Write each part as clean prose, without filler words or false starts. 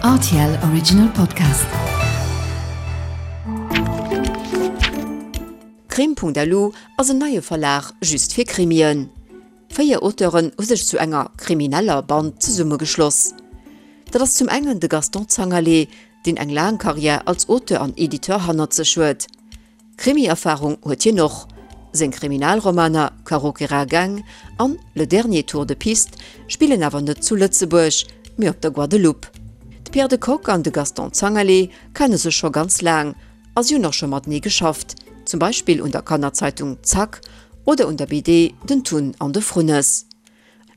Rtl Original Podcast. Krim.lu ass en neie Verlag just fir Krimien. 4 Auteuren hu sech zu enger krimineller Band zesummegeschloss. Dat ass zum engen de Gaston Zangerlé, deen eng laang Karriär als Auteur an Editeur hannert sech huet. Krimi-Erfarung huet hien och, seng Kriminalromaner Karokera Gang an Le dernier tour de piste spillen awer net zu Lëtzebuerg, mee op der Guadeloupe. De Pierre de Kock an de Gaston Zangerlé kenne sech scho ganz laang a si hunn och scho matenee geschafft, zum Beispill un der Kannerzeitung Zack oder un der BD Den Tun an de Frunnes.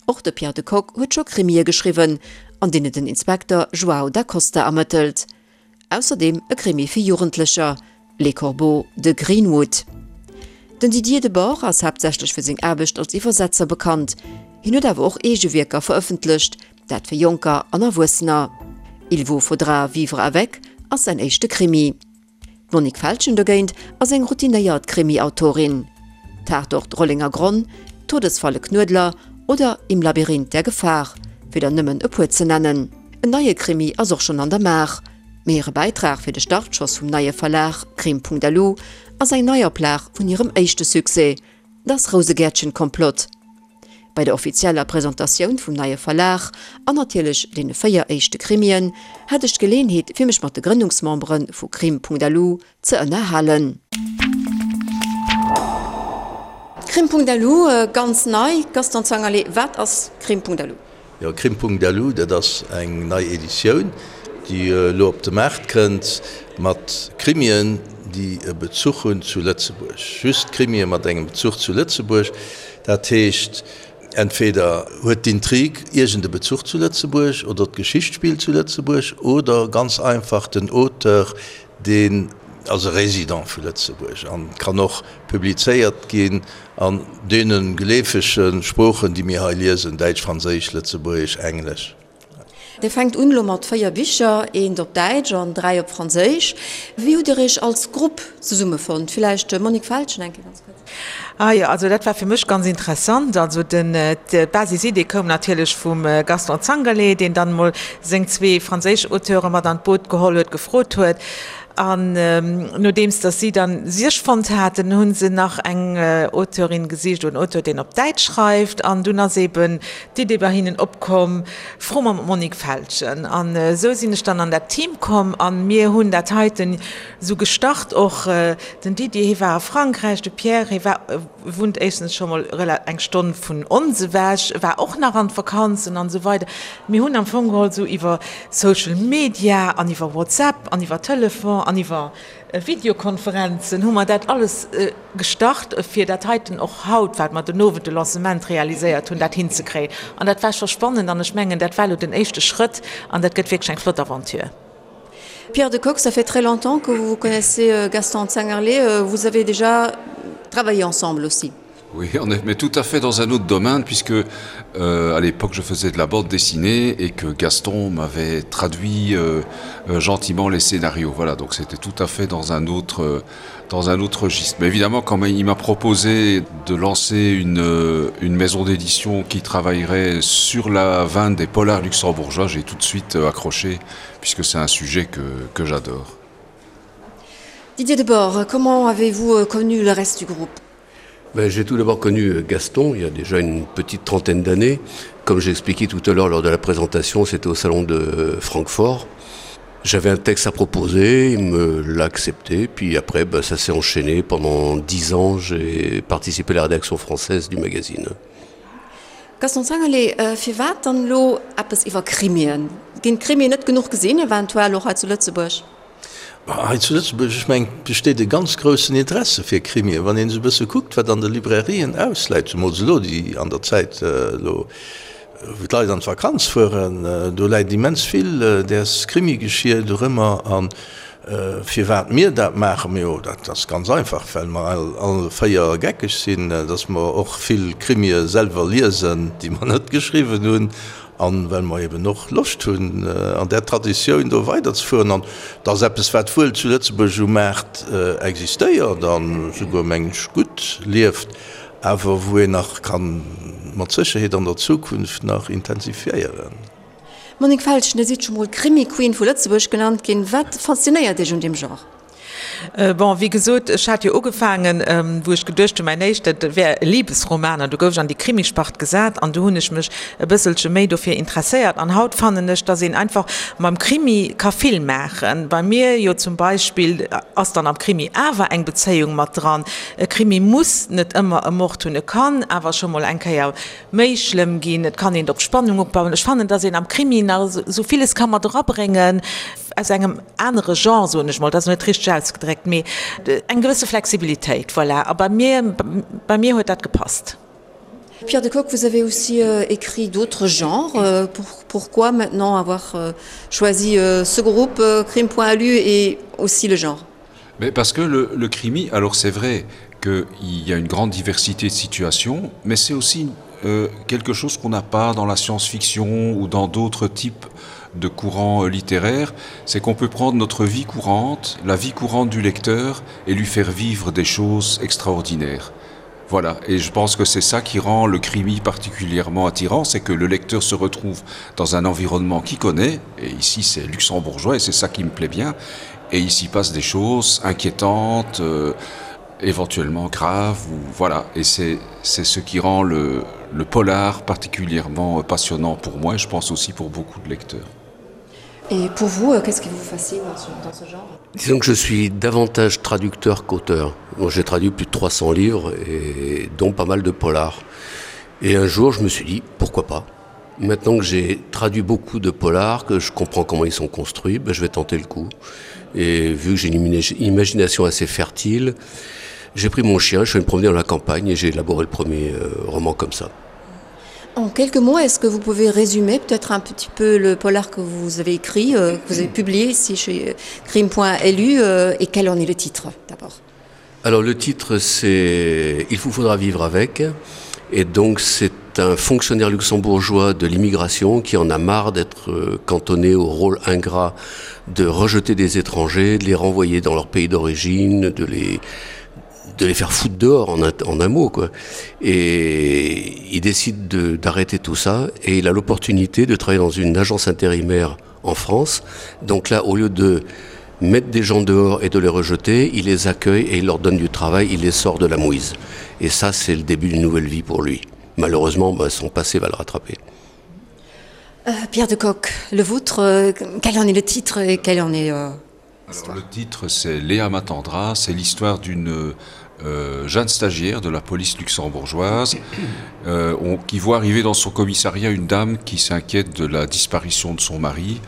Och de Pierre de Kock huet scho Krimie geschriwwen, an deenen den Inspekter João da Costa ermëttelt. Ausserdeem e Krimi fir Jugendlecher, Les Corbeaux de Greenwood. Den Didier Debord ass haaptsächlech fir seng Aarbecht als Iwwersetzer bekannt. Hien huet awer och eege Wierker verëffentlecht, dat fir Jonker an Erwuessener. Il vous faudra vivre avec ass säin éischte Krimi. D'Monique Feltgen dogéint ass eng routinéiert Krimi-Autorin. Tatort Rollenger Gronn, Todesfalle Knuedler oder Im Labyrinth der Gefahr, fir der nëmmen e puer ze nennen. En neie Krimi ass och schonn an der Maach, mee hire Bäitrag fir de Startschoss vum neie Verlag Krim.lu ass eng Neioplag vun hirem éischte Succès, Das Rousegäertchen-Komplott. Bei der offizieller Presentatioun vum neie Verlag an natierlech deene 4 éischte Krimien hat ech d'Geleenheet fir mech mat de Grënnungsmembere vu Krim.lu ze ënnerhalen. Krim.lu, ganz nei, Gaston Zangerlé, wat ass Krim.lu? Jo, Krim.lu, dat ass eng nei Editioun, déi elo op de Maart kënnt, mat Krimien, déi e Bezuch hunn zu Lëtzebuerg. Just Krimie mat engem Bezuch zu Lëtzebuerg. Dat heescht, entweder huet d'Intrig iergend e Bezuch zu Lëtzebuerg oder d'Geschicht spillt zu Lëtzebuerg oder ganz einfach den Auteur, deen ass e Résident vu Lëtzebuerg an kann och publizéiert ginn an deene geleefege Sproochen, déi mir hei liesen, Däitsch, Franséisch, Lëtzebuergesch, Englesch. Dir fänkt un elo mat 4 Bicher, eent op Däitsch an 3 op Franséisch. Wéi hutt Dir Iech als Grupp zesummefonnt? Villäicht Monique Feltgen eng Kéier ganz kuerz. Ah jo, also dat war fir mech ganz interessant. Also den, d'Basisidee koum natierlech vum Gaston Zangerlé, deen dann emol seng zwee franséisch Auteure mat an d'Boot geholl huet, gefrot huet. An nodeems datt si dann sech fonnt haten, hu se nach eng Auteurin gesicht oder en Auteur, deen op Däitsch schreift. An dunn ass eben d'Idee bei hinnen opkomm, Fro mer d'Monique Feltgen. An esou sinn ech dann an dat Team komm a mir hunn dat heiten esou gestart. Och den Didier, hie war a Frankräich, de Pierre, hie war, wunnt éischtens scho mol rela eng Stonn vun ons ewech, war och nach an d'Vakanzen an esou weider. Mir hunn am Fong geholl esou iwwer Social Media an iwwer WhatsApp an iwwer Telefon an iwwer Videokonferenzen hu mer dat alles gestart, fir dat heiten och haut, wat mer den Owend de Lancement realiséiert hunn, dat hinzekréien. An dat war scho spannend an ech mengen, dat war elo den éischte Schrëtt an dat gëtt wierklech eng flott Aventure. Pierre de Kock, ça fait très longtemps que vous connaissez euh, Gaston Zangerlé, euh, vous avez déjà travaillé ensemble aussi. Oui, on est, mais tout à fait dans un autre domaine, puisque euh, à l'époque je faisais de la bande dessinée et que Gaston m'avait traduit euh, euh, gentiment les scénarios. Voilà, donc c'était tout à fait dans un autre, euh, dans un autre registre. Mais évidemment, quand il m'a proposé de lancer une, euh, une maison d'édition qui travaillerait sur la veine des polars luxembourgeois, j'ai tout de suite euh, accroché, puisque c'est un sujet que, que j'adore. Didier Debord, comment avez-vous euh, connu le reste du groupe Ben, j'ai tout d'abord connu euh, Gaston il y a déjà une petite trentaine d'années. Comme j'ai expliqué tout à l'heure lors de la présentation, c'était au salon de euh, Francfort. J'avais un texte à proposer, il me l'a accepté, puis après ben, ça s'est enchaîné. Pendant dix ans, j'ai participé à la rédaction française du magazine. Gaston Zangerlé, Firwat dann elo eppes iwwer Krimien? Ginn d'Krimien net genuch gesinn, eventuell och hei zu Lëtzebuerg? Hei zu Lëtzebuerg, ech mengen, et besteet e ganz groussen Interesse fir Krimien. Wann een esou e bësse kuckt, wat an de Librairien ausläit, zemools elo déi an der Zäit elo, wou d'Leit an d'Vakanz fueren, do läit immens vill däers Krimigeschier dorëmmer. An Firwat mir dat maachen? Majo, dat ass ganz einfach, well mer all 4 geckeg sinn, dass mer och vill Krimie selwer liesen, déi mer net geschriwwen hunn, an well mer eben och Loscht hunn, an där Traditioun do weiderzefueren. An et ass eppes, wat wuel zu Lëtzebuerg um Maart existéiert an esouguer, mengen ech, gutt lieft, awer wou een nach ka mat Sécherheet an der Zukunft nach intensifiéieren. Monique Feltgen, Dir sidd scho mol Krimi-Queen vu Lëtzebuerg genannt ginn. Wat faszinéiert Iech un deem Genre? Bon, wéi gesot, ech hat jo ugefaangen, wou ech geduecht hunn, mäin éischt, dat wär e Libesroman, an du gouf ech an déi Krimispart gesat an du hunn ech mech e bësselche méi dofir interesséiert. An haut fannen ech, dass een einfach mam Krimi ka vill maachen. Bei mir jo zum Beispill ass dann am Krimi awer eng Bezéiung mat dran. E Krimi muss net ëmmer e Mord hunn, e kann awer scho mol eng Kéier méi schlëmm ginn, et kann een op Spannung opbauen. Ech fannen, dass een am Krimi nach esou villes ka mat erabréngen aus engem anere Genre, soen ech mol, dat ass net richteg ausgedréckt, mee eng gewësse Flexibilitéit, voilà. A bei mir, bei mir huet dat gepasst. Pierre de Kock, vous avez aussi écrit d'autres genres, pourquoi maintenant avoir choisi ce groupe Crime.alu et aussi le genre? Mais parce que le, le crimi, alors c'est vrai qu'il y a une grande diversité de situations, mais c'est aussi euh, quelque chose qu'on n'a pas dans la science-fiction ou dans d'autres types de courants euh, littéraires, c'est qu'on peut prendre notre vie courante, la vie courante du lecteur et lui faire vivre des choses extraordinaires. Voilà, et je pense que c'est ça qui rend le crimi particulièrement attirant, c'est que le lecteur se retrouve dans un environnement qu'il connaît, et ici c'est luxembourgeois et c'est ça qui me plaît bien, et ici passe des choses inquiétantes, euh, éventuellement graves, ou voilà, et c'est ce qui rend le, le polar particulièrement passionnant pour moi et je pense aussi pour beaucoup de lecteurs. Et pour vous, euh, qu'est-ce qui vous fascine dans ce, dans ce genre Disons que je suis davantage traducteur qu'auteur. Bon, J'ai traduit plus de 300 livres et dont pas mal de polars. Et un jour, je me suis dit pourquoi pas Maintenant que j'ai traduit beaucoup de polars, que je comprends comment ils sont construits, ben, je vais tenter le coup. Et vu que j'ai une imagination assez fertile, j'ai pris mon chien, je suis allé me promener dans la campagne et j'ai élaboré le premier euh, roman comme ça. En quelques mots, est-ce que vous pouvez résumer peut-être un petit peu le polar que vous avez écrit, euh, que vous avez publié ici chez euh, crime.lu euh, et quel en est le titre d'abord Alors le titre c'est Il vous faudra vivre avec et donc c'est un fonctionnaire luxembourgeois de l'immigration qui en a marre d'être euh, cantonné au rôle ingrat de rejeter des étrangers, de les renvoyer dans leur pays d'origine, de les de les faire foutre dehors en un, en un mot quoi. Et il décide d'arrêter tout ça et il a l'opportunité de travailler dans une agence intérimaire en France. Donc là au lieu de mettre des gens dehors et de les rejeter, il les accueille et il leur donne du travail, il les sort de la mouise. Et ça c'est le début d'une nouvelle vie pour lui. Malheureusement ben, son passé va le rattraper. Euh, Pierre de Coq, le vôtre, euh, quel en est le titre et quel en est euh, Alors, le titre c'est Léa m'attendra, c'est l'histoire d'une euh, jeune stagiaire de la police luxembourgeoise euh, on, qui voit arriver dans son commissariat une dame qui s'inquiète de la disparition de son mari.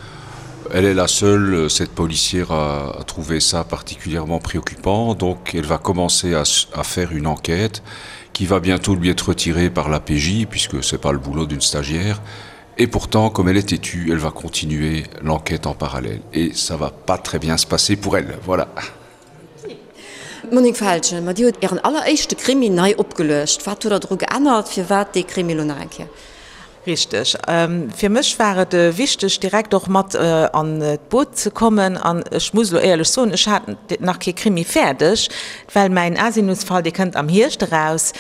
Elle est la seule, euh, cette policière a, a trouvé ça particulièrement préoccupant, donc elle va commencer à, à faire une enquête qui va bientôt lui être retirée par la PJ puisque c'est pas le boulot d'une stagiaire. Et pourtant, comme elle est têtue, elle va continuer l'enquête en parallèle et ça va pas très bien se passer pour elle. Voilà. Monique Feltgen, Ma Dir hutt Ären alleréischte Krimi nei opgeluecht. Wat hutt Der dru geännert? Firwat dee Krimi elo nach eng Kéier? Richteg. Fir mech war et wichteg, direkt och mat an d'Boot ze kommen. An ech muss elo éierlech soen, ech hat nach kee Krimi fäerdeg, well mäin Asinus-Fall, dee kënnt am Hierscht eraus.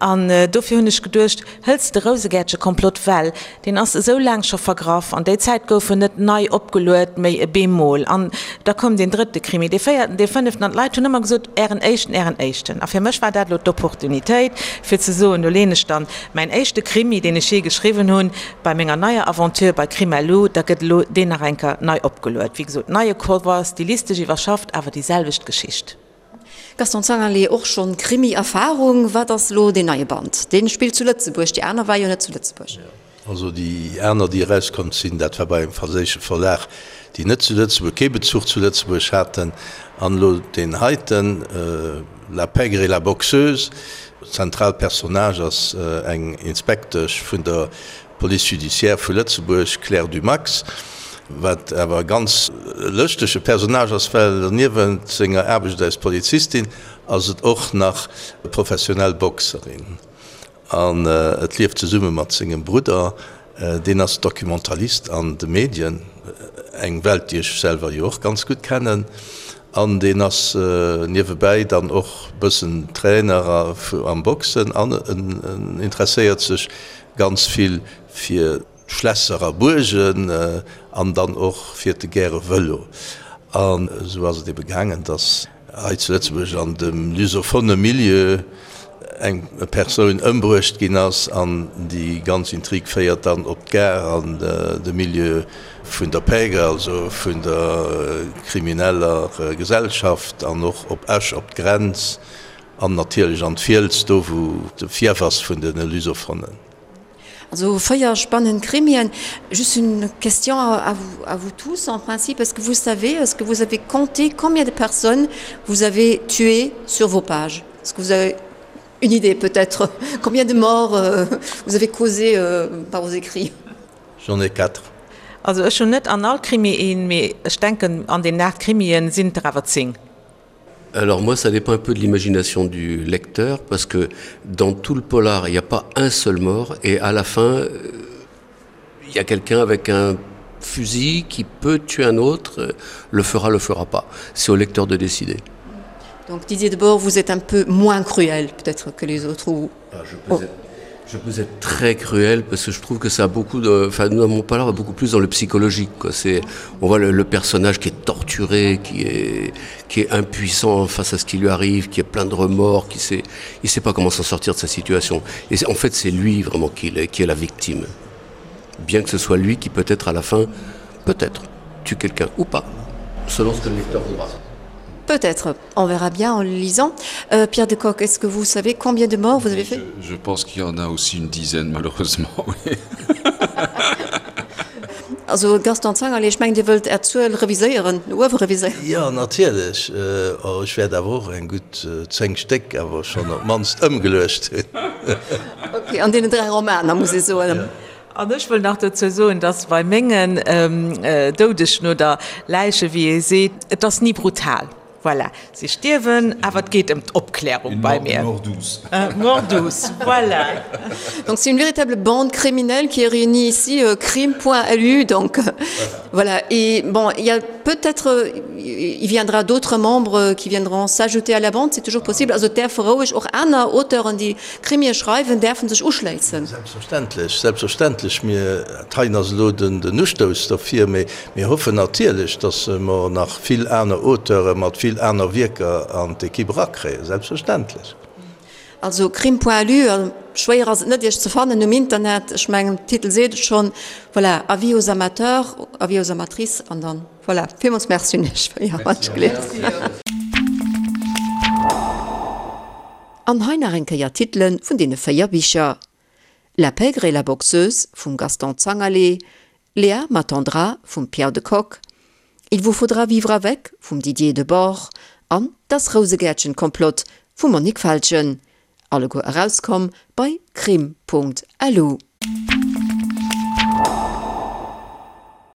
An dofir hunn ech geduecht, Hëls de Rousegäertche-Komplott, well deen ass esou laang scho vergraff, an déi Zäit gouf en net nei opgeluet, méi e bemol. An da koum deen drëtte Krimi, dee véierten, dee fënneften, an d'Leit hunn ëmmer gesot, Ären éischten, Ären éischten. A fir mech war dat elo d'Opportunitéit, fir ze soen, Lo leen ech dann mäin éischte Krimi, deen ech jee geschriwwen hunn, bei menger neier Aventure bei Crimelou, da gëtt elo deen nach eng Kéier nei opgeluet. Wéi gesot, neie Cover, stilistesch iwwerschafft, awer déi selwecht Geschicht. Gaston Zangerlé, Och schonn Krimi-Erfahrung. Wat ass elo deen neie Band? Dee spillt zu Lëtzebuerg, déi aner war jo net zu Lëtzebuerg. Also déi aner, déi erauskomm sinn, dat war bei engem franséische Verlag, déi net zu Lëtzebuerg, kee Bezuch zu Lëtzebuerg haten. An elo deen heiten, La pègre et la boxeuse. Zentral Personnage ass eng Inspektesch vun der Police judiciaire vu Lëtzebuerg, Claire Dumax, wat awer e ganz lëschtege Personnage ass, well niewent senger Aarbecht als Polizistin ass et och nach professionell Boxerin an et lieft zesumme mat sengem Brudder, deen ass Documentalist an de Medien, eng Welt déi ech selwer jo och ganz gutt kennen, an deen ass niewebäi dann och bëssen Trainer am Boxen an en interesséiert sech ganz vill fir. Schlässer a Buergen an dann och fiert e gäre Vëlo. An esou ass et ebe gaangen, datt hei zu Lëtzebuerg an dem lusophone Milieu eng Persoun ëmbruecht ginn ass an déi ganz Intrig féiert dann op d'Gare an de Milieu vun der Pègre, also vun der krimineller Gesellschaft an och op Esch op d'Grenz an natierlech an d'Fiels, do wou de Fief ass vun de Lusophonen. Also véier spannend Krimien. Juste une question à vous, à vous tous en principe, est-ce que vous savez, est-ce que vous avez compté combien de personnes vous avez tuées sur vos pages? Est-ce que vous avez une idée peut-être combien de morts euh, vous avez causé euh, par vos écrits? J'en ai 4. Also ech hunn net an all Krimi een, mee ech denken an den 8 Krimien sinn et der awer 10. Alors moi ça dépend un peu de l'imagination du lecteur parce que dans tout le polar il n'y a pas un seul mort et à la fin euh, il y a quelqu'un avec un fusil qui peut tuer un autre euh, le fera le fera pas c'est au lecteur de décider donc Didier Debord vous êtes un peu moins cruel peut-être que les autres ou ah, je peux oh. être je peux être très cruel parce que je trouve que ça a beaucoup de enfin nous mon parleur beaucoup plus dans le psychologique quoi c'est on voit le, le personnage qui est torturé qui est qui est impuissant face à ce qui lui arrive qui est plein de remords qui sait il sait pas comment s'en sortir de sa situation et en fait c'est lui vraiment qui est qui est la victime bien que ce soit lui qui peut-être à la fin peut-être tue quelqu'un ou pas selon ce que le lecteur voudra Peut-être, on verra bien en le lisant. Euh, Pierre de Kock, est-ce que vous savez combien de morts vous avez fait Je, je pense qu'il y en a aussi une dizaine malheureusement. Oui. Also Gaston Zangerlé, ech mengen Dir wëllt Är Zuel reviséieren, no uewe reviséieren. Jo, natierlech. Ech wäert awer och eng gutt 10 Stéck awer schonn op d'mannst ëmgeluecht hunn. Ok, an deenen 3 Romaner, muss ee soen. An ech wëll nach dozou soen, dass bei mengen Doudegen oder Läichen, wéi ee seet, et ass ni brutal. Voilà, si stierwen, awer et geet ëm d'Opklärung bei mir. Une mort douce. Mort douce, voilà. Donc c'est une véritable bande criminelle qui est réunie ici, crime.lu, donc voilà. Et bon, il y a peut-être, il viendra d'autres membres qui viendront s'ajouter à la bande, c'est toujours possible. Also et däerfe roueg och aner Auteuren, déi Krimie schreiwen, däerfen sech uschléissen. Selbstverständlech, selbstverständlech. Mir, dat heien ass elo den Ustouss derfir, mee mir hoffen natierlech, datt mer nach vill aner Auteure mat vill aner Wierker an d'Equipe erakréien. Selbstverständlech. Also Crime.lu, schwéier ass et net Iech ze fannen um Internet. Ech mengen, den Titel seet et schonn. Voilà, Avis aux amateurs, avis aux amatrices an dann. Voilà, villmools Merci un Iech fir Är Matgeleeënheet. An hei nach eng Kéier d'Titele vun deene 4 Bicher, La pègre et la boxeuse vum Gaston Zangerlé, Léa m'attendra vum Pierre de Kock, Il vous faudra vivre avec vum Didier Debord an Das Rousegäertchen-Komplott vum Monique Feltgen, alleguer erauskomm bei krim.lu.